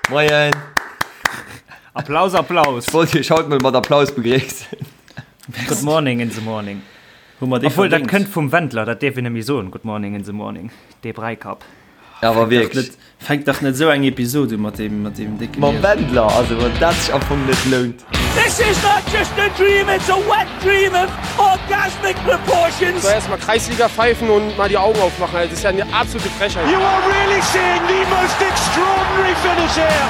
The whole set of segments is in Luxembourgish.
Moien. Applaus, Applaus. Ech wollt iech haut mol mat Applaus begréissen. Good morning in the morning. Hu mer déi Obwuel, dat verdéngt? kënnt vum Wendler, dat dierf een net méi soen, Good morning in the morning, dee Bräikapp. Awer Fänkt dach wierklech. net, fänkt dach net esou eng Episod u mat deem, mat deem décke Mam Mier. Wendler, also wann dat sech am Fong net lount. This is not just a dream, it's a wet dream of orgasmic proportions. So erstmal Kreisliga pfeifen und mal die Augen aufmachen, das ist ja eine absolute Frechheit. You are really seeing the most extraordinary finish here.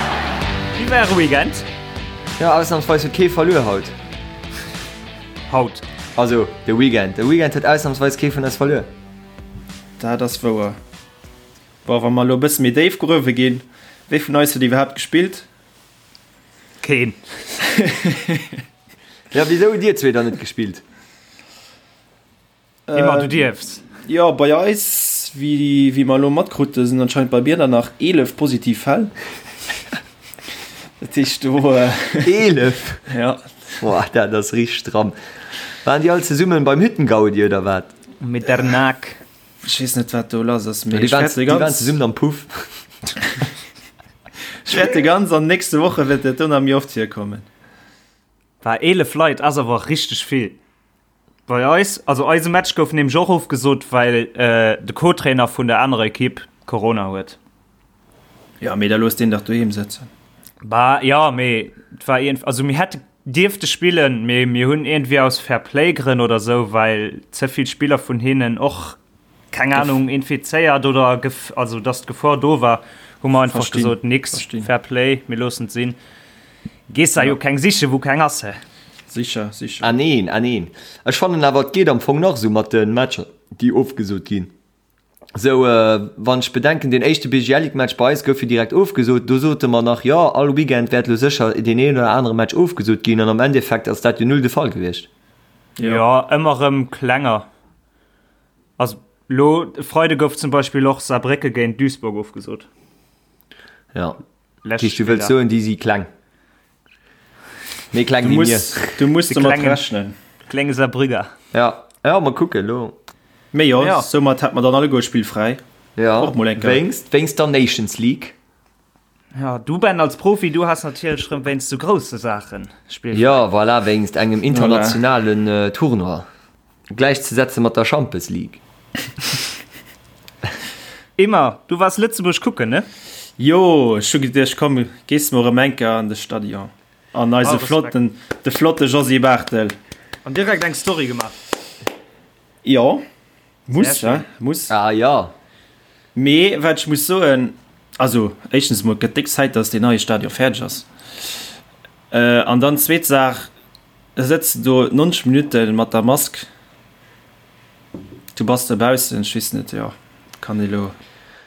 Wéi war äre Weekend? Jo, ausnamsweis huet kee verluer haut. Haut. Also de Weekend. De Weekend huet ausnamsweis kee vun eis verluer. Dat ass wouer. Bon, wa mer elo e bësse méi déif gruewe ginn, wee vun eis huet iwwerhaapt gespillt? Keen. Ja, wisou hutt dir zwee dann net gespillt? Emma, du dierfs. Jo, bei eis, wéi, wéi mer elo matkrute, sinn anscheinend bei mir der nach 11 positiv Fäll. Dat heescht do. 11? Ja. Boah, dat ass richteg stramm. Waren déi all zesummen beim Hüttengaudi oder wat? Mit der Nack. Ech weess net, wat do lass ass, mee Déi ech waren, wäerte déi waren ganz, zesummen am Puff. ech wäerte ganz an nächste Woche wäert dat do nach méi oft virkommen. War 11 Leit ass awer richteg vill. Bei eis, also eise Match gouf nämlech och ofgesot, well de Co-Trainer vun der anerer Ekipp Corona huet. Ja, mee da looss deen dach doheem sëtzen. Bah, jo, mee et war iergend, also mir hätte dierfte spillen, mee mir hunn iergendwéi aus Fair-Play-Grënn oder sou, well ze vill Spiller vun hinnen och, keng Ahnung, infizéiert oder gef, also dass d'Gefor do war, hu mer einfach Verstinn, gesot, nix, verstinn. Fair Play, mir loossen et sinn. Gees der jo keng sichen, wou keng ass, he? Sicher, sicher. Ah neen, ah neen. Ech fannen awer, et geet am Fong nach esou mat de Matcher, déi ofgesot ginn. Sou, wann ech bedenken, deen éischte BGL-Ligue-Match bei eis gouf jo direkt ofgesot. Do sote mer nach, jo, all Weekend wäert elo sécher deen een oder anere Match ofgesot ginn. An am Endeffekt ass dat jo null de Fall gewiescht. Jo, ëmmer erëm klenger. Also lo e Freide gouf zum Beispill och Saarbrécke géint Duisburg ofgesot. Ja. Lescht Heescht, du wëlls Spiller. soen, déi si kleng. Méi kleng Du wéi mir. muss, du muss De domat klengen- rechnen. Klenge Saarbrücker. Ja, ja, mal kucken elo. Mee jo, Ja. soumat hätt mer dann alleguer spillfräi. Ja, Och mol eng Kéier. wéinst, wéinst der Nations League. Ja, du Ben als Profi, du has natierlech rëm wéinst sou grousse Saachen spillfräi. Ja, voilà, wéinst engem internationalen äh, Tournoi. Gläichzesetze mat der Champes League. Emma, du waars Lëtzebuerg kucken, ne? Jo, ech hu geduecht, komm, gees mol erëm eng Kéier an de Stadion. An eise Ah, Respekt. flotten, de flotte Josy Barthel. An direkt eng Story gemaach. Jo, muss, Sehr he, muss. Ah ja. Mee wat ech muss soen, also éischtens emol, et gëtt déck Zäit, dass deen neie Stadion fäerdeg ass. An dann zweet Saach, Da sëtz de do 90 Minutte mat der Mask, du bass dobaussen, ech weess net, jo, kann ee lo.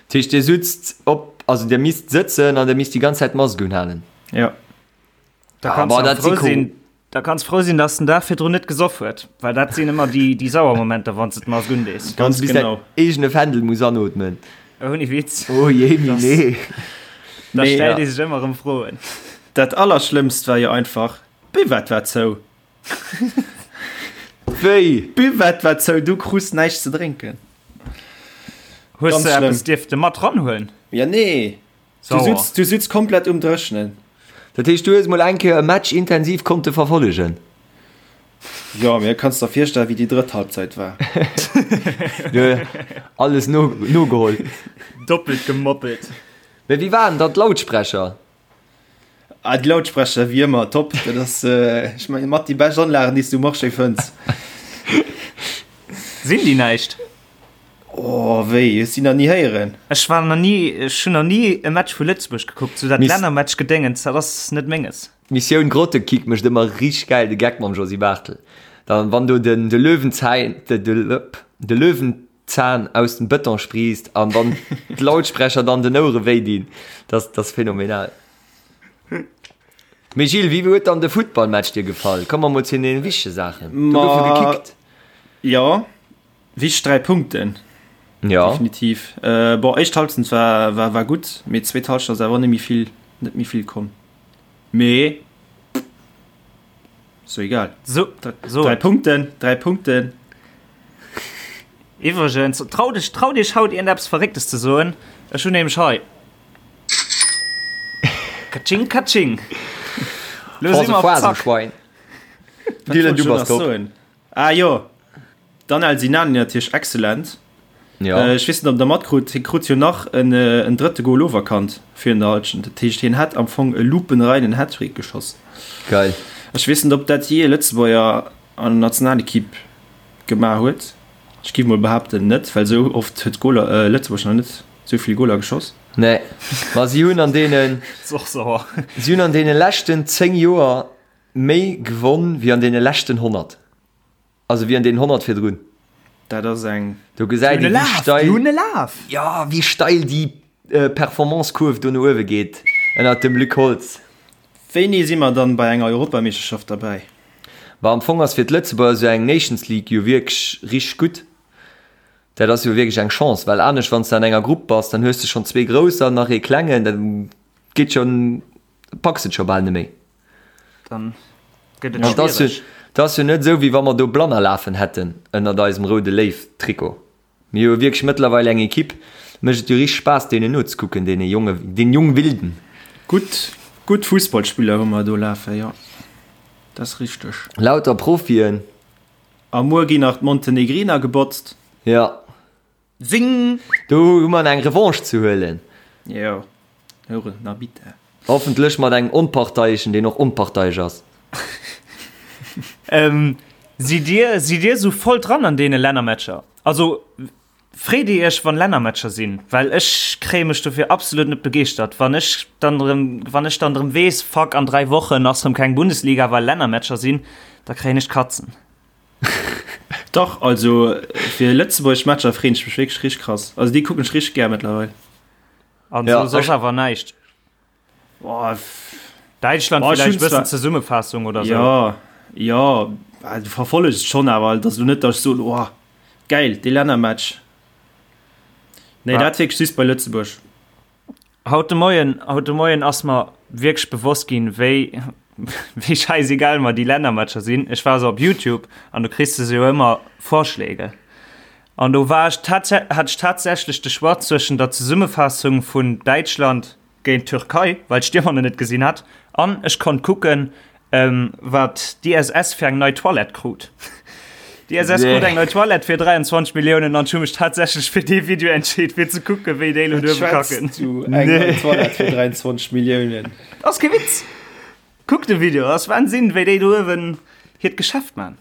Dat heescht, Dir sutzt op, also Dir misst sëtzen an Dir misst déi ganz Zäit d'Mask unhalen? Jo. Da kanns Ah, du dat frou si cool. sinn, da kanns frou sinn, dass den Dag virdrun net gesoff huet, well dat sinn ëmmer déi, déi sauer Momenter, wann s de d'Mask undees. Wann Ganz s du bis däin genau. eegene Fändel muss anootmen. Ouni Witz. Oh jee, nee. Da Mee, stellt ja. ee sech ëmmer erëm Froen. Dat Allerschlëmmst war jo einfach, D'Buvette war zou. Wéi? D'Buvette war zou, du krus näischt ze drénken. Hues Ganz de schlëmm. eppes dierfte mat ranhuelen? Ja nee, du Sauer. sutz, du sutz komplett um Dréchnen. Dat heescht, du hues mol eng Kéier e Match intensiv konnte verfollegen? Jo, mee kanns der virstellen, wéi déi drëtt Halbzeit war. Du alles no, nogeholl. Doppelt gemoppelt. Mee wéi waren dann d'Lautsprecher? Ah, déi Lautsprecher, wéi ëmmer, top. Dat ass, ech mengen, mat déi bescht Anlagen, déi s du um Marché fënns. Sinn déi näischt? Oh, wéi? Hues déi nach ni héieren? Ech war nach ni, ech hunn nach ni e Match vu Lëtzebuerg gekuckt, sou dat Miss- Lännermatch-Gedéngens, dat ass net menges. D'Missioun Grottekick mécht ëmmer richteg gäil de Geck mam Josy Barthel. Dann, wann do den, de Löwenzäin, de, de, de Löwenzahn aus dem Bëton spriisst an dann d'Lautsprecher dann den Ouere wéi dinn, das, das phänomenal. Mee Gilles, wéi huet dann de Futtballmatch dir gefall? Komme mer mol zu den wichtege Saachen. Do gouf jo Ma gekickt. jo, wichteg 3 Punkten. Ja. Definitiv. Äh, bon, éischt Halbzeit war, war, war gutt, mee zweet Halschent ass awer net méi vill, net méi vill komm. Mee So egal. So, so. Drei Punkten, drei Punkten. Iwwregens, trau dech, trau dech haut iergendeppes Verrécktes ze soen. Ech hunn nämlech hei. Katsching, katsching. Lo si mer op Zack. Dylan, du bass top. Ah jo, Danel Sinani natierlech excellent. Ja. Ech weess net, ob der matkrut, hie krut jo nach en, en drëtte Goal oferkannt virun der Halschent. Dat heescht, hien hätt am Fong e lupenreinen Hattrick geschoss. Geil. Ech weess net, ob dat jee e Lëtzebuerger an der Nationalekipp gemaach huet. Ech géif mol behaapten net, well esou oft huet Goaler, äh, Lëtzebuerg nach net esou vill Goaler geschoss. Nee, ma si hunn an deenen, si hunn an deene leschten 10 Joer méi gewonn wéi an deene leschten 100. Also wéi an deenen 100 virdrun. Dat ass eng. Do gesäit ee wéi steil. Déi hunn e Laf! Jo, wéi steil déi Performance-Kurv do no uewe geet ënnert dem Luc Holtz. Wéini si mer dann bei enger Europameeschterschaft derbäi? Bah, am Fong ass fir d'Lëtzebuerger esou eng Nations League jo wierklech richteg gutt. Dat ass jo wierklech eng Chance, well anescht wann s de an enger Grupp bass, dann hues de schonn zwee Grousser, nach ee Klengen, dat geet schonn, packs et scho bal net méi. Dann gëtt et schwiereg. Et ass jo net esou, wéi wa mer do Blanner lafen hätten ënnert eisem roude Léiw-Trikot. Mir hu jo wierklech mëttlerweil eng Equipe, mécht et jo richteg Spaass deenen nozekucken, deene jonge, den jung Wilden. Gutt, gutt Fussballspiller hu mer do lafen, jo, dat ass richteg. Lauter Profien. A muer ginn nach d'Montenegriner gebotzt. Jo. Zing! Do hu mer eng Revanche ze huelen. Jo, houre na bitte. Hoffentlech mat engem Onparteieschen, deen och onparteiesch ass. Sidd dir, sidd dir esou voll dran an deene Lännermatcher? Also freet dir iech wann Lännermatcher sinn? Well ech kréie mech dofir absolut net begeeschtert. Wann ech dann erëm, wann ech dann erëm weess, fuck an 3 Wochen ass erëm keng Bundesliga well Lännermatcher sinn, da kréien ech d'Katzen. Dach, also fir Lëtzebuerg Matcher freen ech mech wierklech richteg krass. Also déi kucken ech richteg gär mëttlerweil. An Ja, so soss ech- awer näischt. Boah, f- Däitschland Boah, ech villäicht hunn bëssen zwar- Zesummefassung oder sou. Ja, ja, ah, du verfollegs et schonn, awer et ass elo net, datt ech soen, oh geil, dee Lännermatch. Nee, Ja. dat wierklech just bei Lëtzebuerg. Haut de Moien, haut de Moien ass mer wierklech bewosst ginn, wéi, wéi scheißegal mer déi Lännermatcher sinn. Ech war esou op Youtube an do kriss de sou ëmmer Vorschläge. An do war ech tats-, hat ech tatsächlech de Choix zwëschen der Zesummefaassung vun Däitschland géint d'Türkei, well ech d'Stiermer net gesinn hat, an ech konnt kucken, Wat d'ISS fir eng nei Toilette krut. D'ISS krut eng nei Toilette fir 23 Milliounen an ech hu mech tatsächlech fir dee Video entscheet, fir ze kucken, wéi déi elo duerwe kacken. Du eng nei Toilette fir 23 Milliounen. Ass kee Witz! Kuck de Video, ass Wahnsinn, wéi déi do uewen hiert Geschäft man.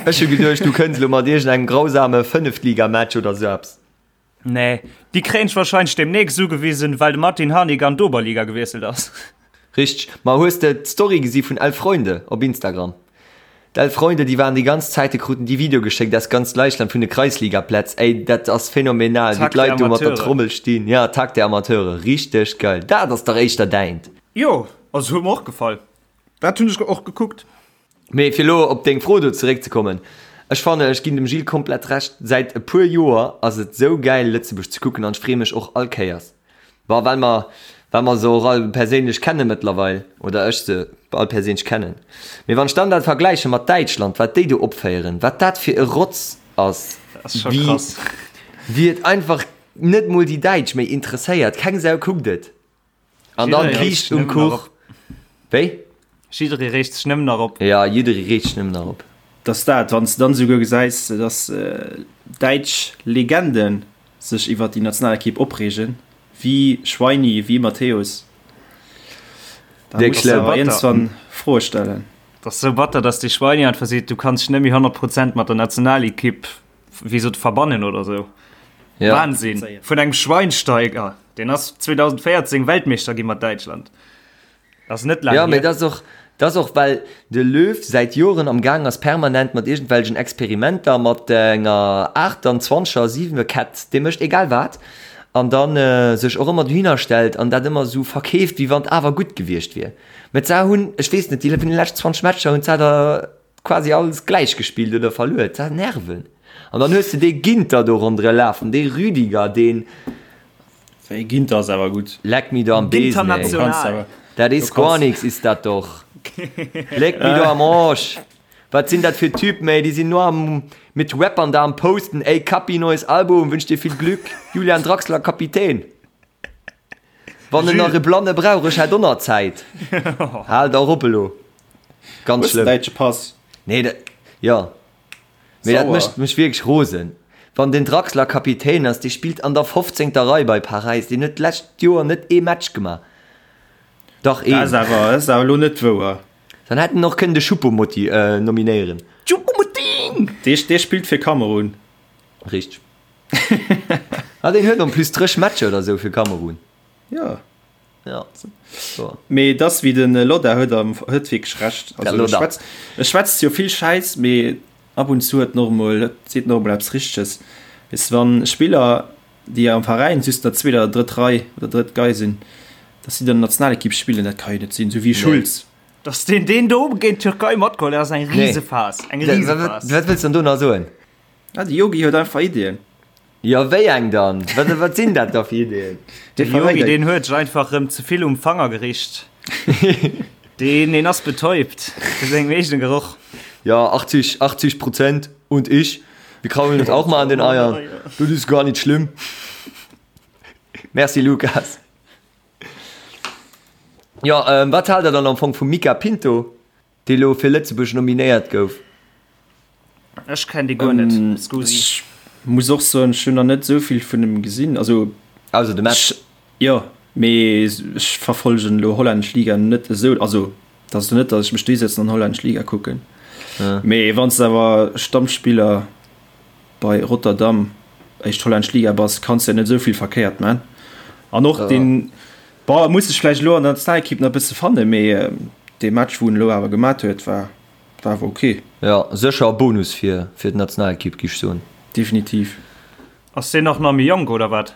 Ech hu geduecht, du kënns elo mat iergendengem grausame Fënneftligamatch oder sou eppes. Nee, déi kréien ech wahrscheinlech demnächst ugewisen, well de Martin Harnik an d'Oberliga gewiesselt ass. Richteg. Ma hues de d'Story gesi vun Elf Freunde op Instagram? D'Elf Freunde, déi waren déi ganz Zäit, déi kruten déi Video geschéckt aus ganz Däitschland vun de Kreisligaplätz. Ey, dat ass phänomenal, wéi Tag der d'Leit do mat der Amateure. Trommel stinn. Ja, Tag der Amateure, richteg geil. Dat ass dach éischter däint. Jo, also huet mer och gefall. Dat hunn ech och gekuckt. Mee fir elo op deng Fro do zeréckzekommen, ech fannen, ech ginn dem Gilles komplett Recht, säit e puer Joer ass et sou gäil Lëtzebuerg ze kucken an ech freeë mech och all Kéiers, bon well mer well mer se och all perséinlech kenne mëttlerweil, oder ech se all perséinlech kennen, mee wann ech dann dat vergläiche mat Däitschland, wat déi do opféieren, wat dat fir e Rotz ass, wéi wéi et einfach net mol déi Däitsch méi interesséiert, keng Sau kuckt et. An dann Kiischt um Kuch. Wéi? Jidderee reegt sech nëmmen nach op. Ja, jidderee reegt sech nëmmen nach op. Dass dat, wann s de dann esouguer gesäis, dass däitsch Legende sech iwwer déi Nationalekipp opreegen, wéi Schweini, wéi Matthäus, da muss de awer iergendwann Froe stellen. Dat ass esou batter, dass dee Schweini einfach seet, du kanns dech net méi 100 Prozent mat der Nationalekipp, wéi sot, verbannen oder esou. Ja. Wahnsinn! Vun engem Schweinsteiger! Deen ass 2014 Weltmeeschter gi mat Däitschland. Ass net laang Ja, mee hier. dat ass och, dat ass och well de Löw säit Joren am Gaang ass permanent mat iergendwelchen Experimenter, mat enger 28er, 7er Kett, dee mécht egal wat, an dann sech och ëmmer dohinner stellt an dat ëmmer esou verkeeft, wéi wann et awer gutt gewiescht wier. Mä d'Sa hunn, ech weess net, déi vun de leschten 20 Matcher hunn d'Sa der quasi alles gläich gespillt oder verluer. Dat Nerven. An dann hues de dee Ginter do ronderë lafen, dee Rüdiger, deen. Wéi Ginter ass awer gutt. Leck mi do am Besen, ey. Dat is gar nix, is dat doch. Leck mi do am Arsch. Wat sinn dat fir Typen, ey? Déi sinn nur am mit Rappern da am Posten, ey Kapi, neues Album, wünsch dir viel Glück. Julian Draxler, Kapitän. Wann en nach e Blanne brauch, ech hätt och nach Zäit. Haalt och op elo. Ganz Hues de schlëmm. däitsche Pass? Nee, dat, jo. Mee dat Sauer. mécht mech wierklech rosen. Wann den Draxler Kapitän ass, dee spillt an der fofzéngter Rei bei Paräis, deen huet d'lescht Joer net ee Match gemaach. Dach Dat ass een. awer, dat ass awer elo net wouer. Dann hätt en och kënnen de Choupo-Motti nominéieren. Choupo-Moting! Dee, dee spillt fir Kamerun. Richteg. Ah, deen huet en plus 30 Matcher oder sou fir Kamerun. Jo. Ja. So. Mee et ass wéi den Lodda huet am huet wierklech Recht. Der Also e Lodda. schwätzt e schwätzt jo vill Schäiss, mee ab und zu huet en och emol seet en och emol eppes Richteges. Weess de wann Spiller déi am Veräin just an der zweeter oder drëtt Rei oder drëtt Gei sinn, datt si dann an der Nationalekipp spillen, dat ka jo net sinn, sou wéi Schulz. Datt deen deen do géint d'Türkei matgeholl huet, ass eng Nee. Risephas, eng Wat Risephas. wat wëlls de dann do nach soen? Ah, de Yogi huet einfach Iddien. Jo, wéi eng dann? Wat, wat sinn dat da fir Iddien? De Yogi, deen huet sech einfach rëm ze vill um Fanger gericht. Deen, deen ass betäubt vu sengem eegene Geroch. Ja, 80, 80 Prozent und ich, wir kraulen uns auch mal an den Eiern. Das ist gar nicht schlimm. Merci, Lukas. Ja, ähm, wat haalt der dann am Fong vum Mica Pinto? Dee lo fir Lëtzebuerg nominéiert gouf. Ech kenn dee guer net, scusi. Ech muss och soen, ech hunn nach net esou vill vun em gesinn, also. Ausser de Match. Jo, mee ech verfollegen elo hollännesch Liga net esou, also et ass elo net, datt ech mech dohisetzen an hollännesch Liga kucken, mee wann s de awer Stammspiller bei Rotterdam, éischt hollännesch Liga, bass, kanns de jo net esou vill verkéiert man. An och deen, bon, e muss sech vläicht elo an der Nationalekipp nach e bësse fannen, mee dee Match, wou en elo awer gemat huet, war war awer ok. Jo, sécher e Bonus fir fir d'Nationalekipp, giff ech soen. Definitiv. Ass deen och nach méi jonk, oder wat?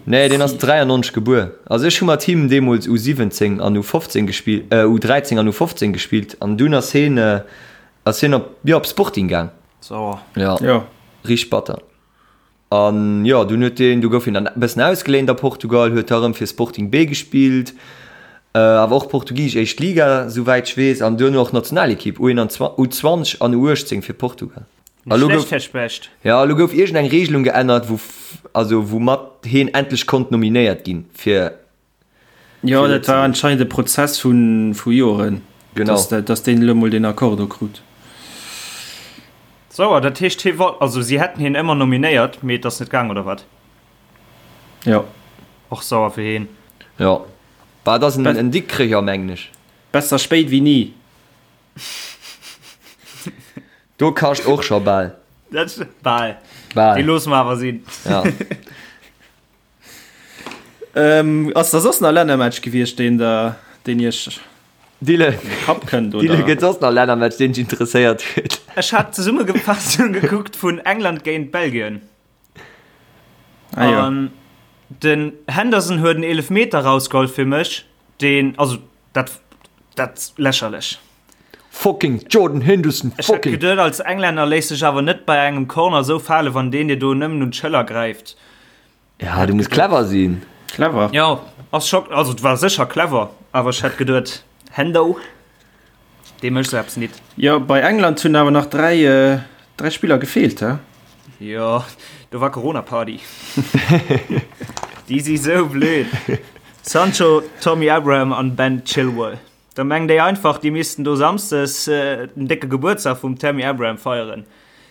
Nee, deen ass 93 gebuer. Also ech hu mat him deemools U17 an U15 gespillt, U13 an U15 gespillt an dunn ass heen ass hien op, jo, op Sporting gaang. Sauer. Jo, Jo. richteg batter. An jo, dunn huet deen, du gouf hien dann e bëssen ausgeléint a Portugal, huet da rëm fir Sporting B gespillt, awer och portugisesch éischt Liga, souwäit ech weess, an duerno och Nationalekipp, U21, U20 an U18 fir Portugal. A Net lo schlecht, gouf, Här Specht. jo, elo gouf iergend eng Regelung geännert, wou, also woumat hien endlech konnt nominéiert ginn fir Jo, dat war anscheinend e Prozess vu vu Joren, Genau. dass dat, dass deen elo mol deen Accord do krut. Sauer, dat heescht hie wollt, also si hätten hien ëmmer nominéiert, mee et ass net gaang, oder wat? Jo. Och sauer fir hien. Jo, bah, et ass en, en Dikkrecher, mengen ech. Besser spéit wéi ni. Do kascht och scho bal. Dat bal. Bal. Déi loosse mer awer sinn. Ja. Ähm, ass da soss nach Lännermatch gewiescht, deen der, deen iech Dille, an de Kapp kënnt, Dille, oder? gëtt soss nach Lännermatch, deen dech interesséiert huet? Ech hat d'Zesummefaassung gekuckt vun England géint Belgien. Ah, jo. An den Henderson huet en Eelefmeter rausgeholl fir mech, deen, also dat, dat lächerlech. Fucking Jordan Henderson, Ech hätt fucking! geduet, als Englänner léiss dech awer net bei engem Corner esou fale, wann deen dir do nëmmen un d'Schëller gräift. Ja, du muss clever sinn. Clever. Jo, ass scho, also et war sécher clever, awer ech hätt geduet, Hendo, dee mécht sou eppes nit. Jo, bei England hunn awer nach 3, 3 Spiller gefeelt, he? Jo, do war Corona-Party. Déi si sou blöd. Sancho, Tommy Abraham an Ben Chilwell. Da mengen déi einfach, déi missten do samsdes den décke Gebuertsdag vum Tammy Abraham feieren.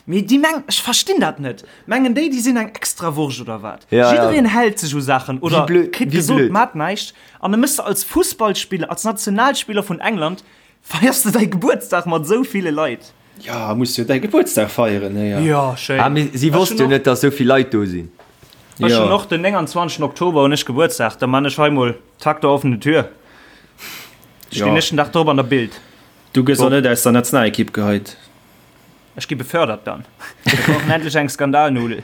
Mee déi mengen, ech verstinn dat net, mengen déi, déi sinn eng Extrawurscht oder wat? Ja, ja. Jiddereen hält sech u Saachen oder Wéi blöd, kritt wéi gesot, blöd. mat näischt. An da mëss de als Fussballspiller, als Nationalspiller vun England, feiers de däi Gebuertsdag mat esou ville Leit. Ja, muss jo däi Gebuertsdag feieren, héier. Jo, schéin. Ah, mee si Ech wosst hunn jo och. net, dass esou vill Leit do sinn. Ech Jo. hunn och den 29 Oktober hunn ech Gebuertsdag, da man ech hei mol Tag der offenen Tür. Stinn Jo. ech den Dag drop an der Bild. Du gëss och net aus der Nationalekipp geheit. Ech gi befördert dann. Mir brauchen endlech eng Skandalnudel.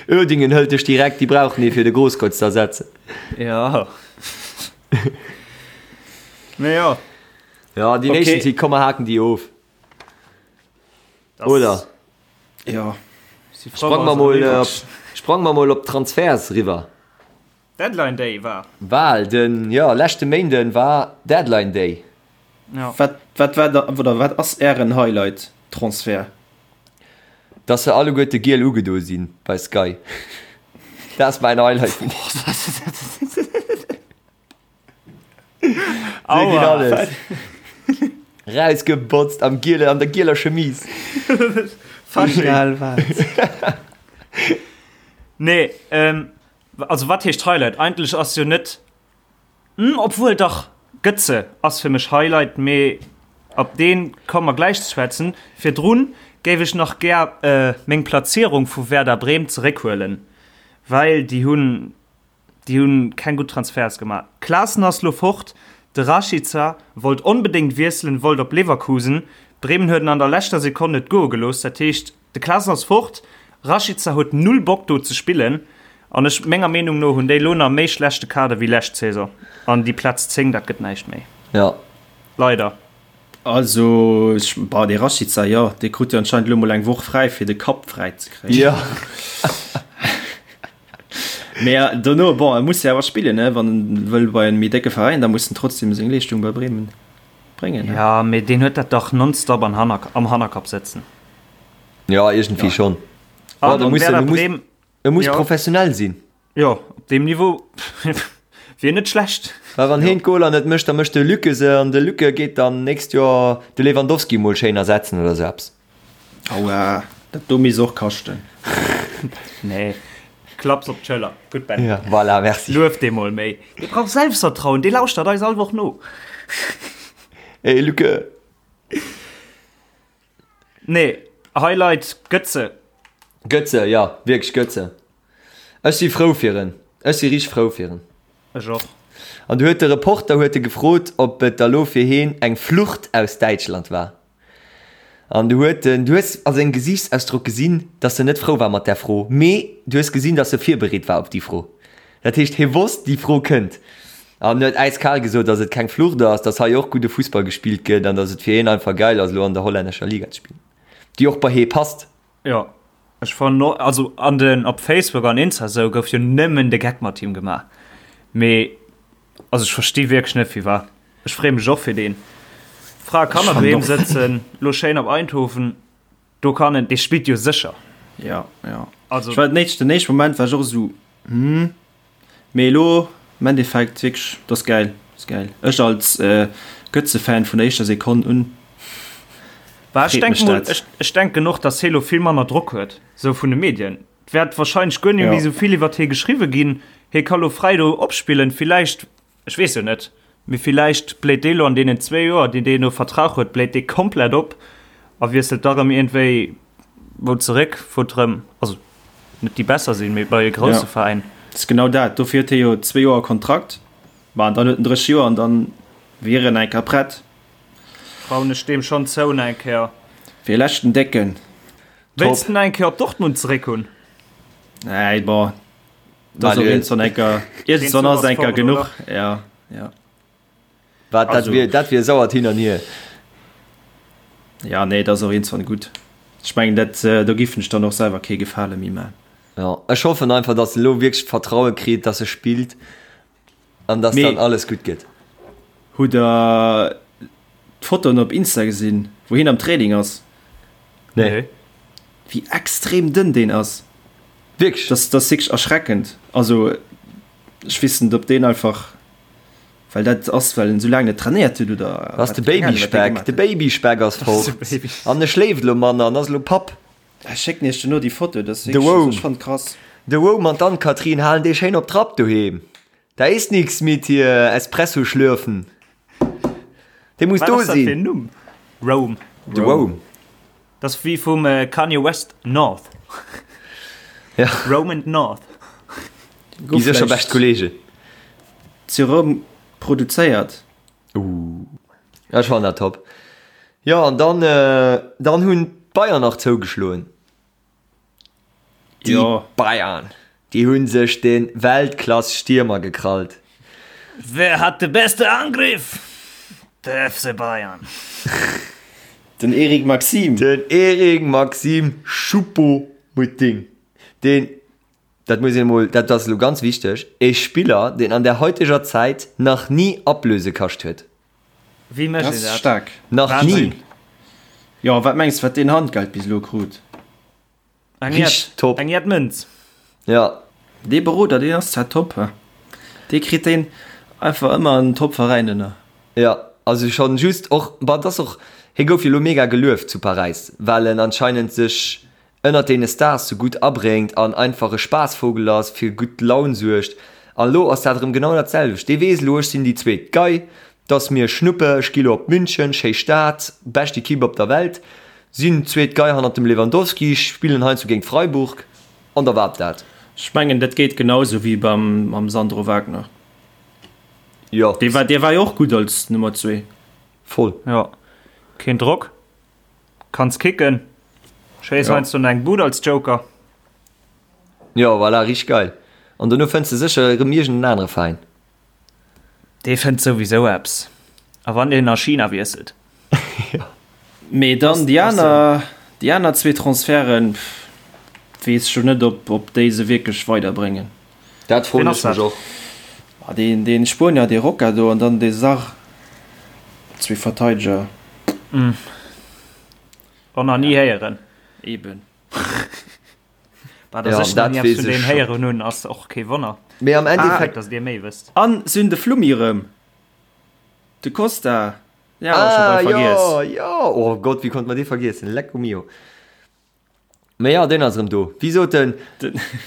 Uerdingen hëlt dech direkt, déi brauchen ee fir de Grosskreutz ze ersetzen. Jo. Mee jo. Jo, déi Okay. Nations League, komm mer haken déi of. Das Oder? Jo. Si frou, Sprang mer wa se mol eriwwer. op, sprang mer mol op d'Transferts riwwer. Deadline Day war. Bal, den, jo, leschte Méinden war Deadline Day. Ja. Wat, wat war da, oder wat ass ären Highlight Transfert? Dass se alleguerte giel ugedo sinn bei Sky. Dat ass mäin Highlight vun Aua. Rausgebotzt am giele, an der gieler Chemise. Egal wat. Nee, ähm, also wat heescht Highlight? Eigentlech ass jo net, hm, obwuel dach, Götze ass fir mech Highlight, mee op deen komme mer gläich ze schwätzen. Virdrun géif ech nach gär äh, meng Platzierung vu Werder Bremen zeréckhuelen, well déi hunn Déi hunn keng gutt Transferts gemaach. Klaassen ass lo fort, de Rashica wollt onbedéngt wiesselen, wollt op Leverkusen. Bremen huet en an der leschter Sekonn net goe gelooss. Dat heescht, de Klaassen ass fort, Rashica huet null Bock do ze spillen an ech, menger Meenung no, hunn déi lo nach méi schlechte Kader wéi lescht Saison an déi Plaz 10, dat gëtt näischt méi. Jo. Leider. Also, ech, bah, dee Rashica, jo, dee krut jo anscheinend lo mol eng Woch fräi, fir de Kapp fräi ze kréien. Jo. Mee dono, bon, e muss jo awer spillen, ne? Wann en wëll bei en méi décke Veräin, da muss en trotzdem seng Leeschtung bei Bremen bréngen, ne? Ja, mee deen huet dat dach nonstop an Hanner, am Hannerkapp sëtzen. Ja, iergendwéi schonn. An an Werder Bremen, E muss professionell sinn. Jo, op deem Niveau wier net schlecht. Well wann heen d'Goler net mécht, da mécht de Luke se an de Luke geet dann nächst Joer de Lewandowski mol schéin ersetzen oder sou eppes. Aua, dat do misst och kaschten. Nee, klapps op d'Schëller. Gutt Ben. Ja, voilà, merci. Luef dee mol méi. Dee brauch Selbstvertrauen, dee lauschtert eis all Woch no. Hey Luke. Nee, Highlight Götze. Götze, ja, wierklech Götze. Ech si frou fir en. Ech si richteg frou fir en. Ech och. An du huet de Reporter huet e gefrot, ob et da lo fir heen eng Flucht aus Däitschland war. An du huet en, du hues a sengem Gesiichtsausdrock gesinn, dass en net frou war mat där Fro, mee du hues gesinn, dass e virbereet war op déi Fro. Dat heescht, hie wosst, déi Fro kënnt. An huet äiskal gesot, dass et keng Flucht ass, dass hei och gudde Fussball gespillt gëtt an dass et fir hien einfach geil ass, elo an der hollännescher Liga ze spillen, déi och bei hie passt. Jo, ech fannen och, also an den, op Facebook an Insta esou gouf jo nëmmen de Geck mat him gemaach, mee also ech versti wierklech net firwat. Ech freeë mech och fir deen. Fra kann Ech an fannen doheem och. sëtzen, lo schéin op Eindhoven, do kann en, dee spillt jo sécher. Ja, ja. Also. Ech war den éischten, den éischten Moment war ech och esou, hm, mee elo am Endeffekt wierklech, dat ass gäil, dat ass gäil. Ech als Götze-Fan vun der éischter Sekonn un, Bah, ech freet denken mech mol, dat. ech, ech denken och, dass hie lo vill manner Drock huet, sou vun de Medien. Et wäert wahrscheinlech guer net Ja. méi sou vill iwwert hie geschriwwe ginn. Hie ka lo fräi do opspillen, villäicht Ech weess jo net, mee villäicht bléit dee lo an deenen zwéi Joer, déi deen do Vertrag huet, bléit dee komplett op a wiesselt da rëm iergendwéi wou zeréck, wou et rëm, also net déi besser sinn, mee bei e grousse Ja, Veräin. ass genau dat. Dofir huet hie jo zwéi Joer Kontrakt. Ma an dann huet en 30 Joer an dann wier en eng Kéier prett. Trauen ech deem schonn zou nach eng Kéier. Fir e leschten Décken. Wéilst en nach eng Kéier op Dortmund zeréck hunn? Nee, bon, Das op iergendwann enker, iergendwann ass enker genuch. Ja, ja. Wat, dat wier, dat wier sauert hin an hier. Ja, nee, dat ass och iergendwann gutt. Ech mengen, dat, do giffen ech dann och selwer kee Gefale méi man. Ja, ech hoffen einfach, dass e lo wierklech d'Vertraue kritt, dass e spillt an dass Mee dann alles gutt gëtt. Hutt der d'Fotoen op Insta gesinn, wou hien am Training ass? Nee. Wéi extrem dënn deen ass. Wierklech? Das, das ass wierklech erschreckend. Also ech weess net, ob deen einfach, well dat ass, well en esou laang net trainéiert huet oder Dat ass wat, de keng Ahnung, wat dee Babyspeck. gemaach De huet. Babyspeck ass fort. An e schléift elo manner an ass elo Papp. Ech schécken iech duerno déi Foto, dat ass De wierklech, also Wome. ech fannen et krass. De Wome an d'Ann-Kathrin halen dee schéin op Trapp doheem. Da ist nix mit hier Espresso schlürfen. Dee muss Wat do ass dat fir sinn. en Numm? Rome. De Wome. Dat ass wéi vum Kanye West North. Ja. Rome and North. Gi sécher bescht Kollegen. Zu Roum produzéiert. Uh. Ech fannen dat top. Jo, an dann, dann hunn d'Bayern nach zougeschloen. Déi Jo. Bayern, déi hunn sech de Weltklass-Stiermer gekrallt. Wer hat de beste Angriff? De FC Bayern. Den Eric Maxim. Den Eric Maxim Choupo-Moting, deen, dat muss een emol, dat ass elo ganz wichteg, e Spiller, deen an der heuteger Zäit nach ni Ablöse kascht huet. Wéi mécht Dat een ass dat? staark. Nach ni! Wahnsinn. Jo, wat mengs de, wat deen Handgeld bis elo krut? Eng Richteg Jett, top. eng Jett Mënz. Ja. Dee Beroder, deen ass zwar top, he. Dee kritt deen einfach ëmmer en top Veräin ënner. Jo, also schonn just och, bon, et ass och, hie gouf jo elo mega gelueft zu Paräis, well en anscheinend sech ënnert deene Stars sou gutt abréngt an einfach e Spaassvogel ass, fir gutt Laun suergt. An elo ass dat erëm genau dat selwecht. Dee weess elo, ech sinn déi zweet Gei, 't ass mir Schnuppe, ech gi lo op München, schéi Stad, bescht Equipe op der Welt, sinn zweet Gei hannert dem Lewandowski, spillen heiansdo géint Freiburg an da war dat. Ech mengen dat geet genau sou wéi beim mam Sandro Wagner. Jo. Dee war, dee war jo och gutt als Nummer zwee. Voll. Jo. Keen Drock. Kanns kicken. Schéiss Ja. heiansdo nach eng Bud als Joker. Jo, voilà, richteg geil. An dono fënns de sécher erëm iergend en anere Veräin. Dee fënnt souwisou eppes. A wann deen a China wiesselt. Jo. Mee dann déi aner, déi aner zwee Transferten, weess ech jo net, ob, ob déi se wierklech weiderbréngen. Dat froen ech mech och. Ma deen, deen Spuenier, dee Roca do, an dann dee Sarr, zwee Verteideger. Och nach ni héieren. Eben. Bah, dass Ja, ech nach dat ni eppes weess vun ech deem scho. héieren hunn, ass och kee Wonner. Mee am Endeffekt. Dass dir méi wësst. An se hunn de Flummi erëm. De Costa, deen hat mer scho Ah, bal vergiess. jo, jo! Oh Gott, wéi konnt mer dee vergiessen? Lecco mio. Mee jo, deen ass erëm do. Wéi sot en,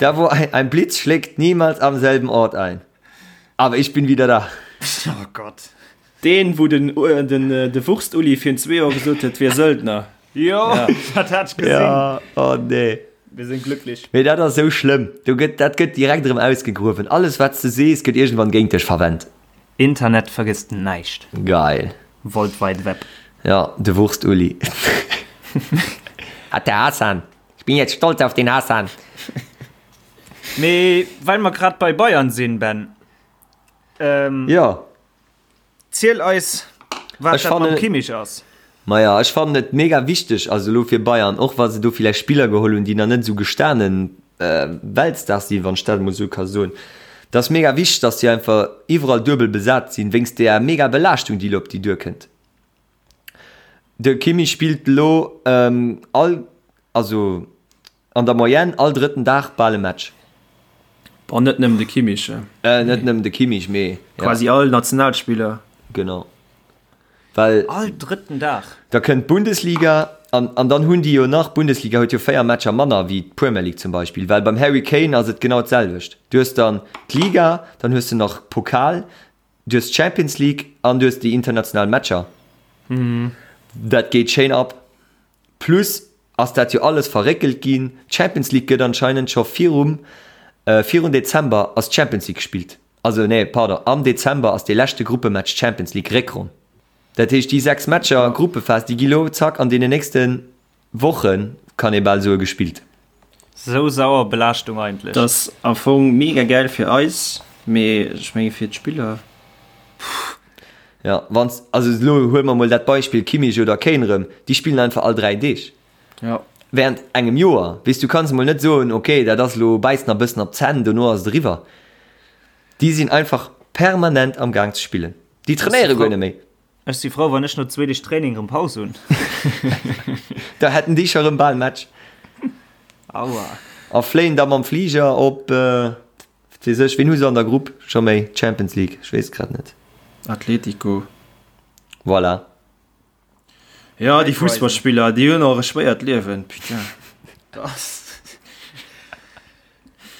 Da wo ein, ein Blitz schlägt niemals am selben Ort ein. Aber ich bin wieder da. Oh Gott. Deen, wou den, den, de Wurst-Uli virun zwee Joer gesot huet, wier Söldner. Jo, dat hat ech gesinn. Ja, oh nee. Wir sind glücklich. Mee dat ass esou schlëmm. Do gëtt, dat gëtt direkt erëm ausgegruewen. Alles, wat s de sees, gëtt iergendwann géint dech verwennt. Internet vergësst näischt. Geil. World Wide Web. Ja, de Wurst-Uli. Hat der Hassan. Ich bin jetzt stolz auf den Hassan. Mee well mer grad bei Bayern sinn, Ben. Ähm, Ja. Ziel eis, wat Ech dat mam fannen- Kimmich ass. Maja, ech fannen et mega wichteg, also elo fir Bayern, och wa se do villäicht Spiller geholl hunn, déi nach net esou gestanen Weltstars sinn, wann ech dat emol esou ka soen, et ass mega wichteg, datt déi einfach iwwerall duebel besat sinn, wéinst där mega Belaaschtung, déi elo op déi duerkënnt. De Kimmich spillt elo all, also an der Moyenne all drëtten Dag bal e Match. Bon, net nëmmen de Kimmich. Net nëmmen de Kimmich, mee ja. Quasi all Nationalspiller. Genau. Well. All drëtten Dag. Da kënnt d'Bundesliga an, an dann hunn déi jo nach, d'Bundesliga huet jo 4 Matcher manner wéi d'Premier League zum Beispill, well beim Harry Kane ass et genau d'selwecht. Du hues dann d'Liga, dann hues de nach Pokal, du hues d'Champions League an du hues déi international Matcher. Dat geet schéin ab. Plus ass dat jo alles verréckelt ginn. D'Champions League gëtt anscheinend scho virum, virun Dezember ass d'Champions League gespillt. Also nee, pardon, am Dezember ass dee leschte Gruppematch Champions League Réckronn. Dat heescht déi 6 Matcher Gruppephas, déi gi lo zack an deenen nächste Wochen, kann ee bal soe, gespillt. Sou sauer Belaaschtung eigentlech. Dat ass am Fong mega gäil fir eis, mee ech menge fir d'Spiller. Jo, wanns, also elo huele mer mol dat Beispill Kimmich oder Kane erëm, déi spillen einfach all 3 Deeg. Jo. Während engem Joer. Weess, du kanns emol net soen, ok, dat ass elo, bäiss nach e bëssen op d'Zänn, dono ass et eriwwer. Déi sinn einfach permanent am Gaang ze spillen. Déi trainéiere guer net méi. Ech si frou, wann ech no zwee Deeg Training erëm Paus hunn. Da hätten déi scho rëm bal Match. Aua. A fléien da mam Fliger op, wat weess ech, wien hu se an der Grupp scho méi? Champions League, ech weess et grad net. Atletico. Voilà. Jo, déi Fussballspiller, déi hunn och e schwéiert Liewen, putain.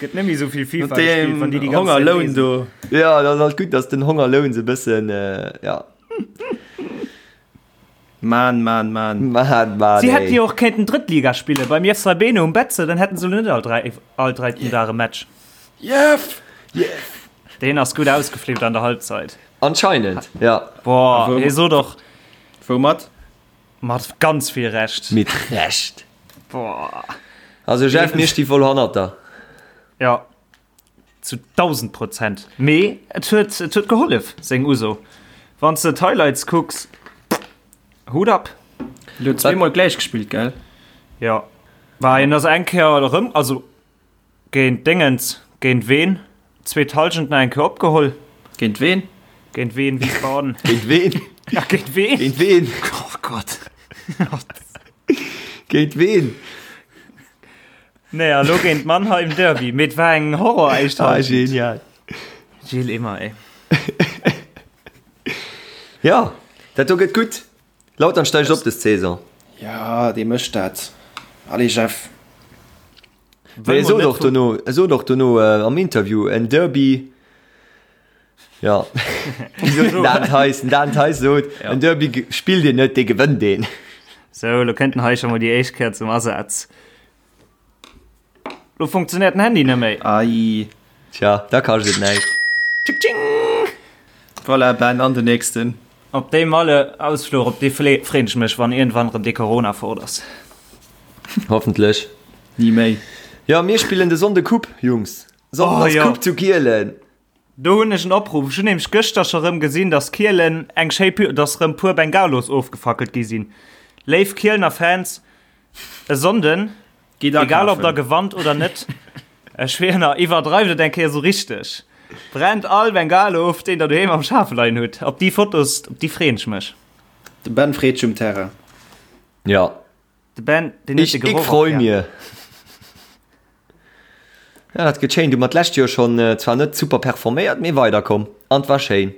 Gëtt net méi esou vill FIFA Mat deem gespillt, wann déi déi ganz Zäit Hongerloun reesen. do. Jo, dat ass alt gutt, dass den Hongerloun se e bëssen, ja. Mann, Mann, Mann. Mann, Mann, Si hätten ey. jo och kéinten Drëttliga spillen beim Jeff Saibene um Betze, dann hätten se elo net all 3, all dräiten Dag e Match. Jeff! Jeff! Deen ass gutt ausgeflippt an der Halbzeit. Anscheinend, ja. Boah, hie sot och. Woumat? Mat ganz vill Recht. Mit Recht. Boah. Also Jeff, mir sti voll hannert der. Ja, zu 1000 Prozent. Mee et huet, et huet gehollef, seng Uso. Wann s de d'Highlights kucks, Hut ab. Huet zweemol gläich gespillt, gell? Ja. War hien ass eng Kéier erëm, also Géint Déngens, géint ween? Zweet Halschent nach eng Kéier opgeholl. Géint ween? Géint ween? Wiesbaden. Géint ween? Ja, géint ween? Géint ween? Oh Gott. Géint ween? Nee, a lo géint Mannheim Derby. Mee et war eng Horror éischt Ah, Halschent. genial. Gilles Immer, ey. Ja, dat do gëtt gutt. Lautern steigt op des Saison. Ja, dee mécht dat. Allez, Jeff. Mee e sot och dono, e sot och dono am Interview, en Derby, ja, wéi sot den Dan Theis? Den Dan Theis sot, en Derby spillt een net, dee gewënnt een. Sou, lo kënnt den hei scho mol déi éischt Kéier zum Asaz. Lo funktionéiert den Handy net méi. Ai. Tja, da kascht et näischt. Tsching tsching! Voilà, Ben, an den nächsten. Op dee Malle-Ausfluch, op dee freen ech mech, wann iergendwann erëm dee Corona fort ass. Hoffentlech. Ni méi. Jo, mir spillen de Sonnde Coupe, Jungs. Sonnden Oh ass jo. Coupe zu Kielen. Do hunn ech en Opruff. Ech hunn nämlech gëschter scho rëm gesinn, dass Kielen eng schéi Py-, dass rëm puer Bengalos ofgefackelt gi sinn. Léif Kielener Fans, e Sonnden, Geet egal ob akafen. der gewannt oder net, ech schwieren, iwwerdreift et eng Kéier sou richteg. Brennt all Bengalo of, deen der doheem am Schaf leien hutt. Op déi Fotos, op déi freeën ech mech. De Ben freet sech um Terrain. Ja. De Ben, deen huet Ich, de ich Geroch och freu gär. mir. Ja, dat gëtt schéin. Du mat d'lescht Joer schonn zwar net super performéiert, mee weiderkomm. An 't war schéin.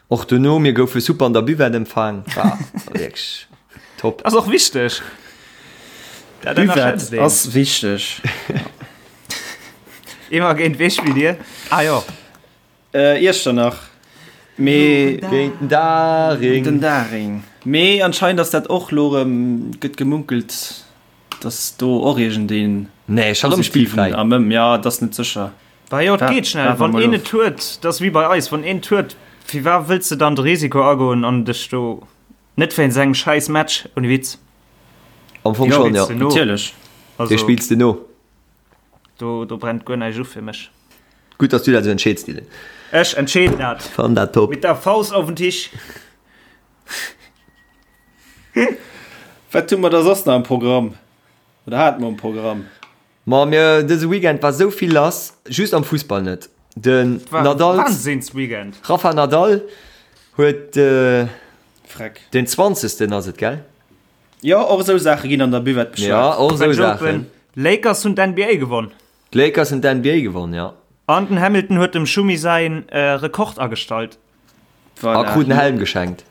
Och dono, mir goufe super an der Buvette empfaang. War wierklech top. Ass och wichteg. Dat ënnerschätzt Buvette een. ass wichteg. Immer géint wee spillt dir? Ah jo. Iechternach. Mee. Géint den Daring. Den Daring. Mee anscheinend ass dat och lo erëm, gëtt gemunkelt, dass do och iergendeen Nee, scho rëm positiven spillfräi. am Ëm, ja, et ass net sécher. Bah jo, et geet schnell. Waarde Wann mol een of. et huet, dat ass wéi bei eis, wann een et huet, firwat wëlls de dann de Risiko agoen an dech do net wéinst engem schäiss Match, ouni Witz. Am Fong Jo, schonn, jo. Spills de no. natierlech. Dee Also spills de no. do, do brennt guer näischt u fir mech. Gutt, dass du dat esou entscheeds, Dylan. Ech entscheeden dat. Fann dat top. Mit der Faust auf den Tisch. Wat hu mer da soss nach am Programm? Oder hate mer am Programm? Ma mir, dëse Weekend war sou vill lass, just am Fussball net. Den Nadal, Wahnsinnsweekend. Rafa Nadal huet Freck. den 20. ass et, gell? Jo, och esou Saache ginn an der Buvette beschwat. Ja, och esou French Open, Saachen. Lakers hunn d'NBA gewonn. D'Lakers hunn d'NBA gewonn, ja. An den Hamilton huet dem Schumi säin Rekord agestallt. A krut en Helm geschenkt.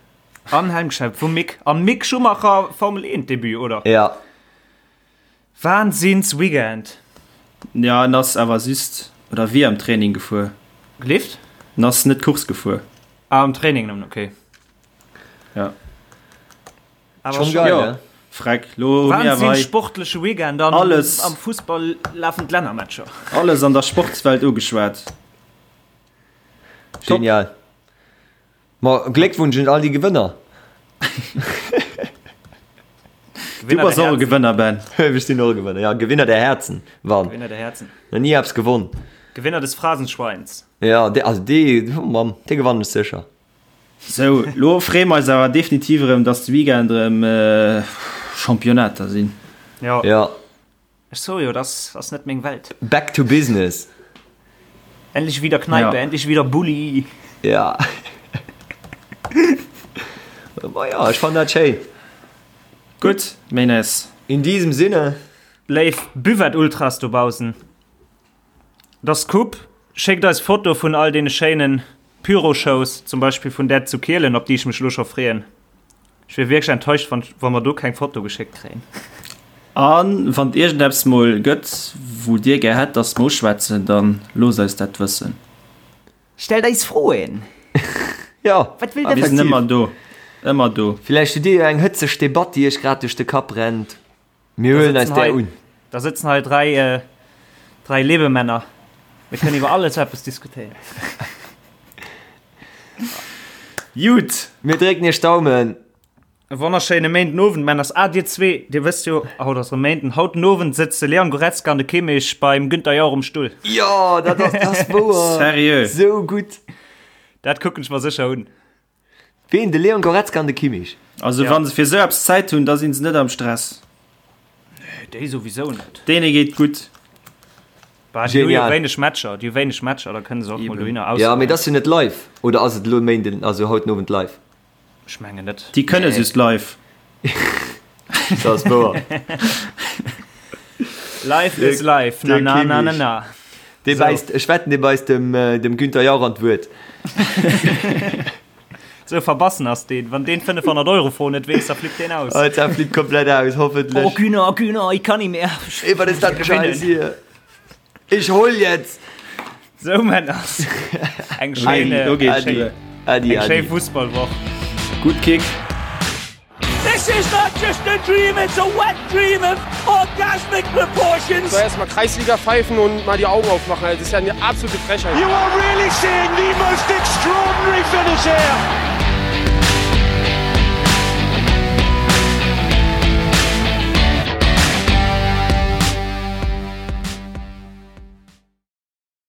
An Helm geschenkt vum Mick. An Mick Schumacher Formel 1 Debut, oder? Ja. Wahnsinns Weekend. Ja, en ass awer just, oder wier am Training gefuer. Gelift? En ass net Course gefuer. Ah, am Training nëmmen, okay. Ja. Awer Schon schon geil, Jo, ne? freck, lo hu mir awer Wahnsinn hei sportleche Weekend an Alles. am Fussball lafen d'Lännermatcher. alles an der Sportswelt ugeschwat. Top. Genial. Ma Gléckwunsch un all déi Gewënner. Du bass och e Gewënner, Ben. Ech sinn och e Gewënner, ja. Gewinner der Herzen, wann. Gewinner der Herzen. Nach ni eppes gewonn. Gewinner des Phrasenschweins. Ja, dee, also dee, oh Mann, dee gewannen ech sécher. Sou, lo freeë mer eis awer definitiv erëm, dass de Weekend erëm Championnater sinn. Jo. Ja. Ech soe jo, dass ass net meng Welt. Back to business. Endlich wieder Kneipe, Ja. endlich wieder Bulli. Ja. Ma ja, ech fannen dat schéin. Gutt, Menes. In diesem Sinne. Léif Buvette-Ultras dobaussen, et ass Coupe, schéckt eis Foto vun all deene schéinen Pyro-Shows, zum Beispill vun där zu Kielen, op déi ech mech elo scho freeën. Ech wier wierklech enttäuscht, wann wa mer do keng Foto geschéckt kréien. A wann et iergendeppes mol gëtt, wou dir gär hätt, dass mer uschwätzen, dann loosst eis dat wëssen. Stellt eis Froen! Jo, Wat wëllt der Mir sinn wëssen? ëmmer do, ëmmer do. Villäicht hutt dir jo eng hëtzeg Debatt, déi iech grad duerch de Kapp rennt. Mir huelen eis där un. Da sëtzen hei 3, 3 Lebemänner. Mir kënnen iwwer alles eppes diskutéieren. Jut! Mir drécken iech d'Daumen. E wonnerschéine Méinden Owend, Männers. Ah, dir zwee, dir wësst jo, haut ass erëm Méinden. Haut den Owend sëtzt de Leon Goretzka an de Kimmich beim Günther Jauch um Stull. Jo, dat ass, dat ass wouer. Seriö? Sou gutt. Dat kucken ech mer sécher un. Ween? De Leon Goretzka an de Kimmich? Also Ja. wann se fir sou eppes Zäit hunn, da sinn se net am Stress. Nee, déi souwisou net. Deene geet gutt. Bah, déi hu jo Genial. wéineg Matcher, déi hu wéineg Matcher, da kënne se och mol Eben. dohinner Ja, mee ausruhen. dat ass jo net live. Oder ass et elo Méinden, also haut den Owend live? Ech mengen net. Déi kënne Nee. just live. Dat ass wouer. Life is life, na na na na na. Dee bäisst, ech wetten, dee bäisst dem, dem Günther Jauch an d'Wuert. Sou verbassen ass deen. Wann deen 500 Euro Fro net weess, da flippt deen aus. Oh, da flippt komplett aus, hoffentlich. Oh Günther, Günther, ich kann nicht mehr. Ey, was ist das für Scheiß hier? Ich hol jetzt! Sou Männer. Eng schéin, Adi, Adi, eng schéin Fussballwoch. Gutt Kick. This is not just a dream, it's a wet dream of orgasmic proportions. So erstmal Kreisliga pfeifen und mal die Augen aufmachen. Das ist ja eine absolute Frechheit. You are really seeing the most extraordinary finish here.